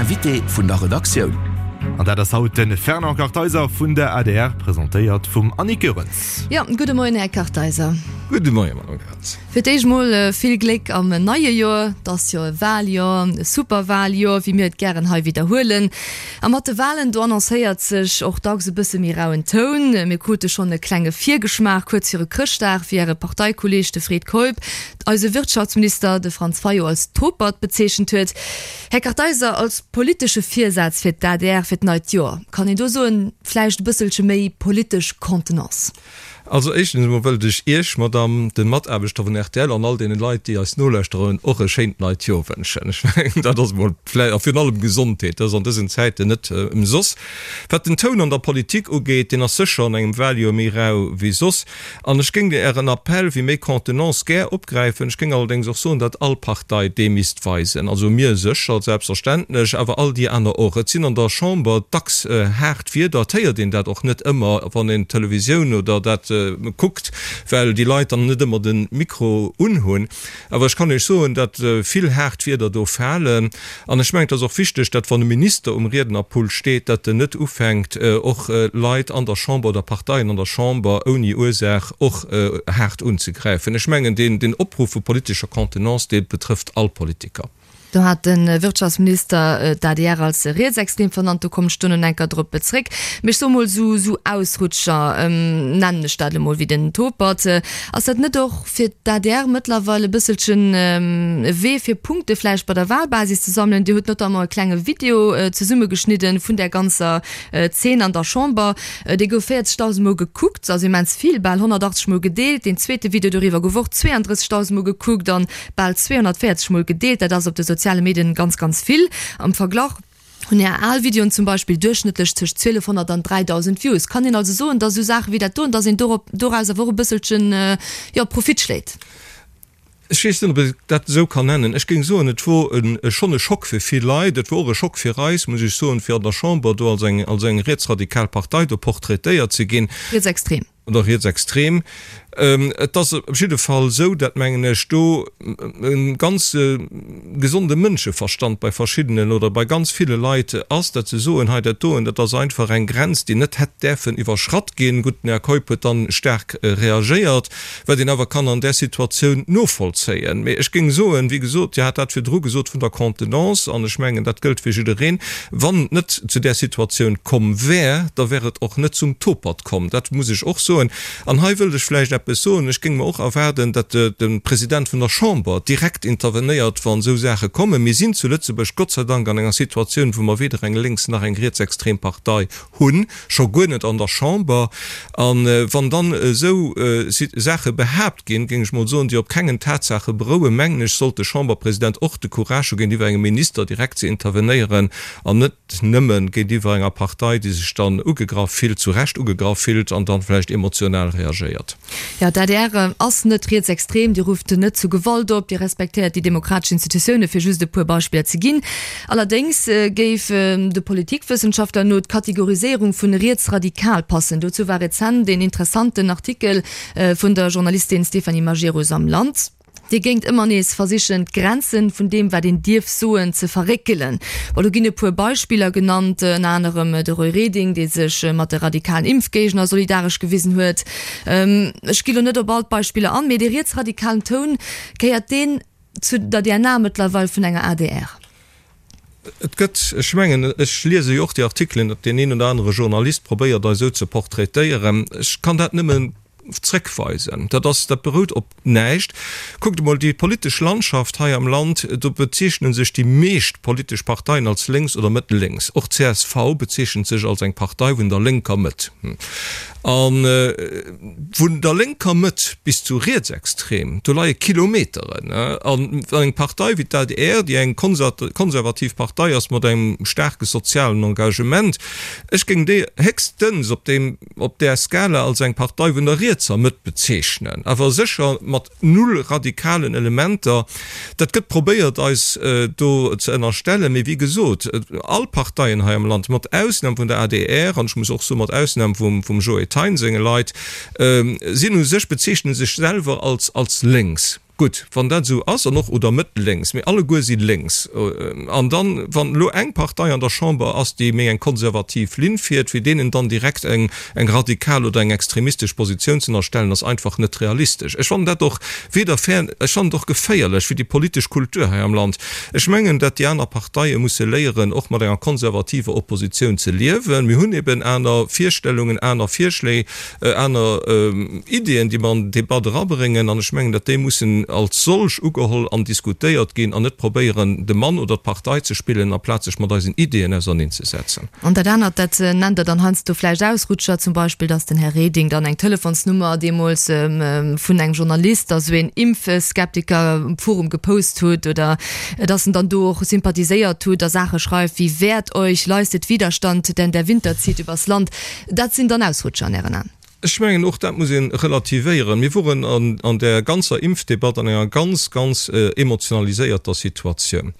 Invité vun der Redaktioun. An dat ass haut de Fernand Kartheiser vun der adr, presentéiert vum Annick Goerens. Jo, gudde Moien, Här Kartheiser. Gudde Moien, Madame Goerens. Fir d'éischt mol vill Gléck am neie Joer. Et ass jo e Waljoer, e super Waljoer, wéi mir et gären hei widderhuelen. A mat de Walen, do annoncéiert sech och dacks e bësse méi rauen Toun. Mir krute schonn e klenge Virgeschmaach kuerz viru Chrëschtdag, wéi Äre Parteikolleeg, de Fred Keup, eise Wirtschaftsminister, de Franz Fayot, als Topert bezeechent huet. Här Kartheiser, als politesche Virsaz fir d'ADR fir d'neit Joer, kann een do soen, vläicht e bësselche méi politesch Contenance? Also éischtens emol wëllt ech Iech, Madame, de Mataarbechter vun rtl an all deene Leit, déi eis nolauschteren, och e schéint neit Joer wënschen. Ech mengen, dat ass emol vläicht, a virun allem Gesondheet, dat ass an dësen Zäiten net ëmsoss. Wat den Toun an der Politik ugeet, deen ass sécher an engem Wahljoer méi rau wéi soss. An ech géing Ären Appell fir méi Contenance gär opgräifen. Ech géing allerdéngs och soen, datt all Partei dee misst weisen. Also mir sécher, selbstverständlech, awer all déi aner och. Et sinn an der Chamber dacks haart Wierder. Et héiert een dat och net ëmmer, wann een d'Televisioun oder dat kuckt, well déi Leit dann net ëmmer de Mikro unhunn. Awer ech kann Iech soen, datt vill haart Wierder do falen. An ech mengen, et ass och wichteg, datt wann e Minister um Riednerpult steet, datt en net ufänkt, och Leit an der Chamber oder Parteien an der Chamber ouni Ursaach och haart unzegräifen. Ech mengen, deen Opruff vu politescher Contenance, dee betrëfft all Politiker. Do hat de Wirtschaftsminister d'ADR als rietsextrem vernannt. Do kommen ech duerno enker drop zréck. Mee ech soe mol, esou Ausrutscher, nennen ech dat emol, wéi den Topert, ass dat net och fir d'ADR mëttlerweil e bësselchen e Wee fir Punkte vläicht bei der Wahlbasis ze sammelen? Dir hutt notamment e klenge Video zesummegeschnidden vun där ganzer Zeen an der Chamber. Dee gouf 40.000 Mol gekuckt, also immens vill, bal 180 Mol gedeelt. Deen zweete Video doriwwer gouf och 32.000 Mol gekuckt an bal 240 Mol gedeelt. Dat ass op de soziale Medien ganz, ganz vill. Am Verglach hunn Är al Videoen zum Beispill duerchschnëttlech tëscht 1200 an 3000 Views. Kann een also soen, dass esou Saache wéi dat doen, dass een dorop, doraus awer och e bësselchen, jo, Profit schléit? Ech weess net, ob ee dat esou kann nennen. Ech géing soen, et wor e schonn e Schock fir vill Leit. Et wor och e Schock fir eis, muss ech soen, fir an der Chamber do als eng, als eng rietsradikal Partei do portraitéiert ze ginn. Rietsextrem. Oder rietsextrem. Et ass op jidde Fall esou, dat mengen ech, do e ganz gesonde Mënscheverstand bei verschiddenen oder bei ganz ville Leit ass, dat se soen, hei dat doen, dat ass einfach eng Grenz, déi net hätt däerfen iwwerschratt ginn. Gutt, den Här Keup huet dann staark reagéiert, wat een awer kann an där Situatioun novollzéien. Mee ech géing soen, wéi gesot, Dir hat dat virdru gesot vun der Contenance, an ech mengen, dat gëllt fir jiddereen, wann et net zu där Situatioun komm wär, da wär et och net zum Topert komm. Dat muss ech och soen. An hei wëllt ech vläicht eppes soen, Ech géing mer och erwaarden, datt de President vun der Chamber direkt intervenéiert, wann esou Saache kommen. Mir sinn zu Lëtzebuerg Gott sei Dank an enger Situatioun, wou mer weder eng lénks nach eng rietsextrem Partei hunn, scho guer net an der Chamber. A wann dann esou Saache behaapt ginn, géing ech mol soen, déi op kengen Tatsaache berouen, mengen ech, sollt de Chamberpresident och de Courage hu géintiwwer engem Minister direkt ze intervenéieren an net nëmme géintiwwer enger Partei, déi sech dann ugegraff fillt, zu Recht ugegraff fillt an dann vläicht emotional reagéiert. Jo, d'ADR ass net rietsextrem, Dir rufft net zu Gewalt op, Dir respektéiert déi demokratesch Institutioune, fir just e puer Beispiller ze ginn. Allerdéngs géif de Politikwëssenschaftler no d'Kategoriséierung vun rietsradikal passen. Dozou war rezent een interessanten Artikel vun der Journalistin Stéphanie Majerus am Land. Dir géingt ëmmer nees versichen, d'Grenzen vun deem, wat een dierf soen, ze verréckelen. Bon, do ginn e puer Beispiller genannt, ënner anerem de Roy Reding, dee sech mat de radikalen Impfgéigner solidaresch gewisen huet. Ech gi lo net op all d'Beispiller an, mee dee rietsradikalen Toun, gehéiert deen zu der DNA mëttlerweil vun enger adr? Et gëtt, ech mengen, ech liese jo och déi Artikelen, datt deen een oder anere Journalist probéiert, eis esou ze portraitéieren. Ech kann dat nëmmen zréckweisen. Dat ass, dat berout op näischt. Kuckt emol déi politesch Landschaft hei am Land, do bezeechne sech déi meescht politesch Parteien als lénks oder mëttellénks. Och csv bezeechent sech als eng Partei vun der lénker Mëtt. A vun der lénker Mëtt bis zu rietsextrem, do leie Kilometeren. A wann eng Partei wéi d'ADR, déi eng konservativ Partei ass mat engem staarke sozialen Engagement, ech géing déi héchstens op deem, op där Skala als eng Partei vun der rietser Mëtt bezeechnen, awer sécher mat null radikalen Elementer. Dat gëtt probéiert eis do ze ënnerstellen, mee wéi gesot, all Parteien hei am Land, mat Ausnam vun der adr, an ech muss och soen, mat Ausnam vum Joe Thein senge Leit, sinn u sech, bezeechne sech selwer als lénks. Gutt, wann dat esou ass, an och, oder Mëtt-lénks, mee alleguer si lénks. An dann, wann elo eng Partei an der Chamber ass, déi méi eng konservativ Linn fiert, fir deenen dann direkt eng eng radikal oder eng extremistesch Positioun ze ënnerstellen, ass einfach net realistesch. Ech fannen dat och weder fair, ech fannen et och geféierlech fir déi politesch Kultur hei am Land. Ech mengen, dat déi aner Parteie musse léieren, och mat enger konservativer Oppositioun ze liewen. Mir hunn eben aner Virstellungen, aner Virschléi. aner Ideeën, déi mer an den Debat erabréngen, an ech mengen, datt déi mussen als solch ugeholl an diskutéiert ginn an net probéieren, de Mann oder d'Partei ze spillen, amplaz sech mat eisen Ideeën auserneenzesetzen. An dat anert, dat nennt Der dann heiansdo vläicht Ausrutscher, zum Beispill, datt den Här Reding dann eng Telefonsnummer deemools vun engem Journalist, also een Impfskeptiker, um Forum gepost hutt oder datt en dann do och sympathiséiert hutt a Saache schreift wéi Wehrt euch, leistet Widerstand, denn der Winter zieht übers Land. Dat sinn dann Ausrutscher an Ären Aen? Ech mengen, och dat muss ee relativéieren. Mir woren an där ganzer Impfdebatt an enger ganz, ganz emotionaliséierter Situatioun.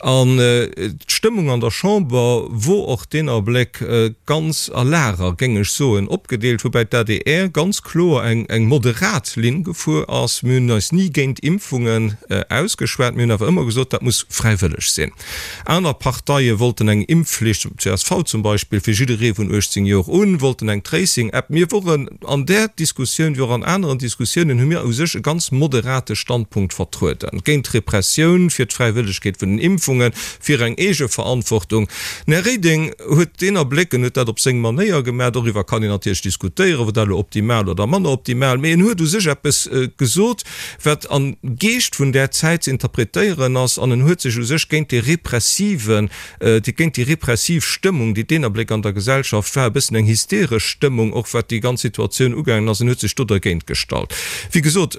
An d'Stëmmung an der Chamber wor och deen Abléck ganz a Lager, géing ech soen, opgedeelt, woubäi d'ADR ganz kloer eng moderat Linn gefuer ass. Mir hunn eis ni géint Impfungen ausgeschwat, mir hunn awer ëmmer gesot, dat muss fräiwëlleg sinn. Aner Parteie wollten eng Impfflicht, csv zum Beispill, fir jidderee vun 18 Joer un, wollten eng Tracing-App. Mir woren an där Diskussioun, wéi och an aneren Diskussiounen, hu mir u sech e ganz moderate Standpunkt vertrueden, géint d'Repressioun, fir d'Fräiwëllegkeet vun den Impfungen, fir eng Eegeverantwortung. Den Här Reding huet deen Abléck, en huet dat op seng Manéier gemaach, doriwwer kann een natierlech diskutéieren, wor dat elo optimal oder manner optimal, mee en huet u sech eppes gesot, wat am Geescht vun där Zäit ze interpretéieren ass, an en huet sech u sech géint dee repressiven, géint déi repressiv Stëmmung, déi deen Abléck an der Gesellschaft war, e bëssen eng hysteresch Stëmmung och wat déi ganz Situatioun ugaangen ass, en huet sech do dergéint gestallt. Wéi gesot,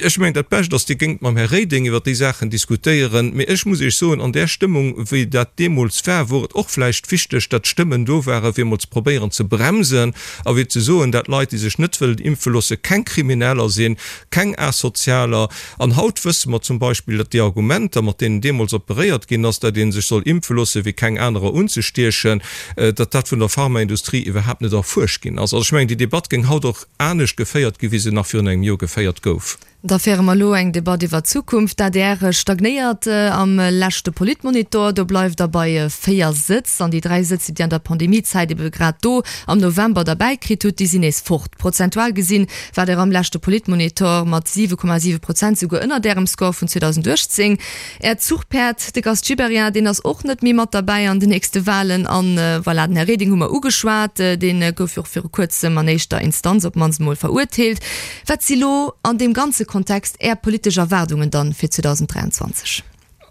ech mengen, dat Bescht ass, Dir géingt mam Här Reding iwwer déi Saachen diskutéieren, mee ech muss Iech soen, an där Stëmmung, wéi dat deemools war, wor et och vläicht wichteg, datt Stëmmen do waren, fir emol ze probéieren ze bremsen a fir ze soen, dat Leit, déi sech net wëllen impfe loosse, keng Krimineller sinn, keng Asozialer. An haut wësse mer zum Beispill, datt déi Argumenter, mat deenen deemools operéiert ginn ass, datt ee sech soll impfe loosse fir keng anerer unzestiechen, datt dat vun der Pharmaindustrie iwwerhaapt net erfuerscht ginn ass. Also ech mengen, déi Debatt géing haut och anescht geféiert gi wéi se nach virun engem Joer geféiert gouf. Da féiere mer elo eng Debatt iwwer d'Zukunft. D'adr stagnéiert am leschte Politmonitor. Do bleift der bei 4 Sëtz. An déi 3 Sëtz, déi Dir an der Pandemiezäit ebe grad do am November derbäi kritt hutt, déi sinn nees fort. Prozentual gesinn war Der am leschte Politmonitor mat 7,7 Prozent souguer ënnert Ärem Score vun 2018. Äert Zuchpäerd, de Gast Gibéryen, deen ass och net méi mat derbäi an den nächste Walen. An voilà, den Här Reding hu mer ugeschwat, dee gouf jo och viru kuerzem an éischter Instanz op d'mannst emol verurteelt. Wat si lo an deem ganze Kontext Är politesch Erwaardungen dann fir 2023?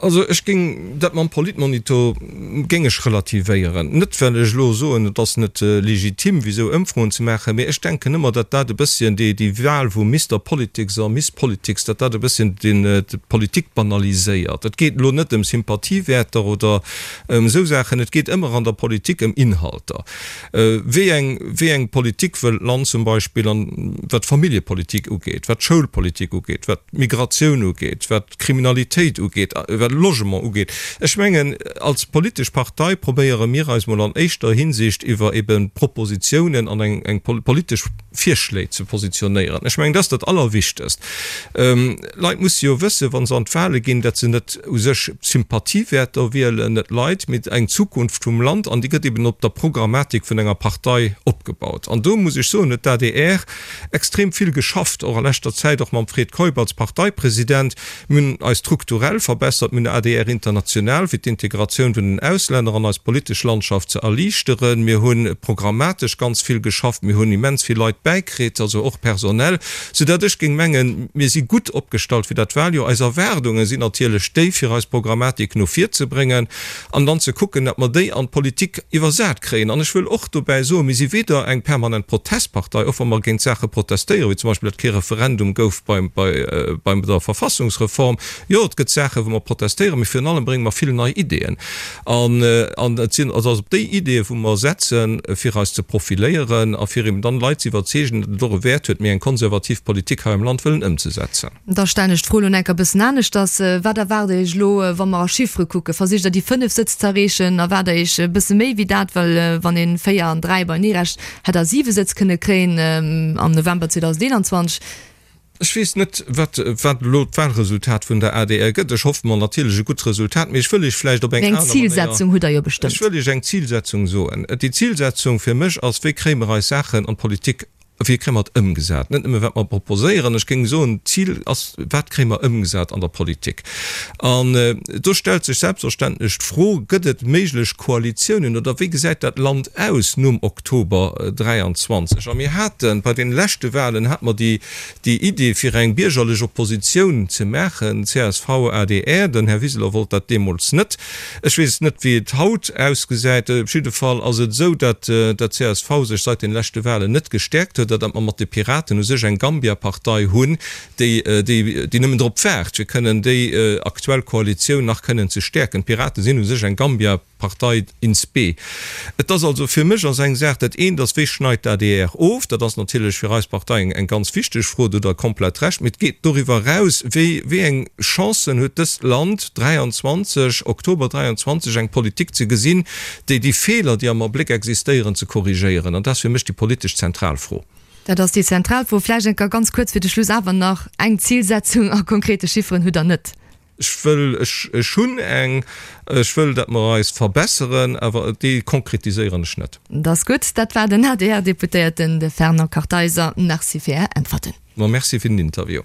Also ech géing dat mam Politmonitor géing ech relativéieren. Net well ech elo soen, et ass net legitim fir esou Ëmfroen ze maachen, mee ech denken ëmmer, datt dat e bësschen déi déi Wahl vu Mister Politics a Miss Politics, datt dat e bësschen den d'Politik banaliséiert. Et geet elo net ëm Sympathiewäerter oder ëm esou Saachen, et geet ëmmer an der Politik ëm Inhalter. Wéi eng wéi eng Politik wëll d'Land zum Beispill an wat d'Familljepolitik ugeet, wat d'Schoulpolitik ugeet, wat d'Migratioun ugeet, wat d'Kriminalitéit ugeet, wat de Logement ugeet. Ech mengen, als politesch Partei probéiere mir eis mol an éischter Hinsicht iwwer ebe Propositionen an eng eng politesch Virschléi ze positionéieren. Ech mengen, dat ass dat Allerwichtegst. Leit musse jo wëssen, wa se an d'Wahle ginn, datt se net u sech Sympathiewäerter wielen, net Leit, mee eng Zukunft vum Land. An déi gëtt eben op der Programmatik vun enger Partei opgebaut. An do muss ech soen, huet d'ADR extrem vill geschafft, och a leschter Zäit, och mam Fred Keup als Parteipresident. Mir hunn eis strukturell verbessert, mir hunn adr International fir d'Integratioun vun den Auslänner an eis politesch Landschaft ze erliichteren. Mir hu programmatesch ganz vill geschafft, mir hunn immens vill Leit bäikritt, also och personell, soudatt ech géing mengen, mir si gutt opgestallt fir dat Wahljoer. Eis Erwaardunge sinn natierlech déi, fir eis Programmatik no vir ze bréngen an dann ze kucken, datt mer déi an d'Politik iwwersat kréien. An ech wëll och dobäi soen, mir si weder eng permanent Protestpartei, och wa mer géint Saache protestéieren, wéi zum Beispill, datt kee Referendum gouf bei bei der Verfassungsreform. Jo, et gëtt Saachen, wou mer protestéieren, mee virun allem brénge mer vill nei Ideeën. An an et sinn also op déi Ideeë wou mer setzen, fir eis ze profiléieren a fir eben dann Leit ze iwwerzeegen, datt et och e Wäert huet, méi eng konservativ Politik hei am Land wëllen ëmzesetzen. Da stellen ech d'Fro elo enker e bëssen aneschters, Wat erwaart Der Iech elo, wa mer a Chiffere kucken? Versicht Der déi 5 Sëtz ze erreechen? Erwaart Der Iech e bësse méi wéi dat? Well wann ee 4 an 3 beienee rechent, hätt Der 7 Sëtz kënne kréien am November 2021. Ech weess net, wat, wat elo d'Wahlresultat vun der adr gëtt. Ech hoffe mer natierlech e gutt Resultat, mee ech wëll Iech vläicht op eng aner Manéier. Eng Zilsetzung hutt Der jo bestëmmt. Ech wëll Iech eng Zilsetzung soen. Déi Zilsetzung fir mech ass, Wéi kréie mer eis Saachen an d'Politik, wéi kréie mer et ëmgesat? Net nëmme wat mer proposéieren. Ech géing soen, d'Zil ass, Wat kréie mer ëmgesat an der Politik? An do stellt sech selbstverständlech d'Fro, Gëtt et méiglech Koalitiounen oder wéi gesäit dat Land aus nom Oktober 23? A mir haten, bei deene leschte Wahlen hate mer déi, déi Idee fir eng biergerlech Oppositioun ze maachen, csv, adr, den Här Wiseler wollt dat deemools net. Ech weess net, wéi et haut ausgesäit. Op jidde Fall ass et esou, datt d'CSV sech seit den leschte Wahlen net gestäerkt huet a datt mer mat de Piraten u sech eng Gambia-Partei hunn, déi, déi, déi nëmmen drop waart, fir kënnen déi aktuell Koalitioun nach kënnen ze stäerken. D'Pirate sinn u sech eng Gambia. Partei in spe. Et ass also fir mech ass eng Saach, dat eent ass, wéi schneit d'ADR of? Dat ass natierlech fir eis Partei eng eng ganz wichteg Fro, do hutt Der komplett Recht. Mee et geet doriwwer eraus, wéi wéi eng Chancen huet dëst Land 23, Oktober 23, eng Politik ze gesinn, déi déi Feeler, déi am Abléck existéieren, ze korrigéieren? An dat ass fir mech déi politesch zentral Fro. Dat ass déi zentral Fro. Vläicht enker ganz kuerz fir de Schluss awer nach, Eng Zilsetzung a konkrete Chifferen hutt Der net? Ech wëll, ech, ech hunn eng, ech wëll, datt mer eis verbesseren, awer déi konkretiséieren ech net. Dat ass gutt. Dat war den ADR-Deputéierten, de Fernand Kartheiser. Merci fir Är Äntwerten. Ma merci fir den Interview.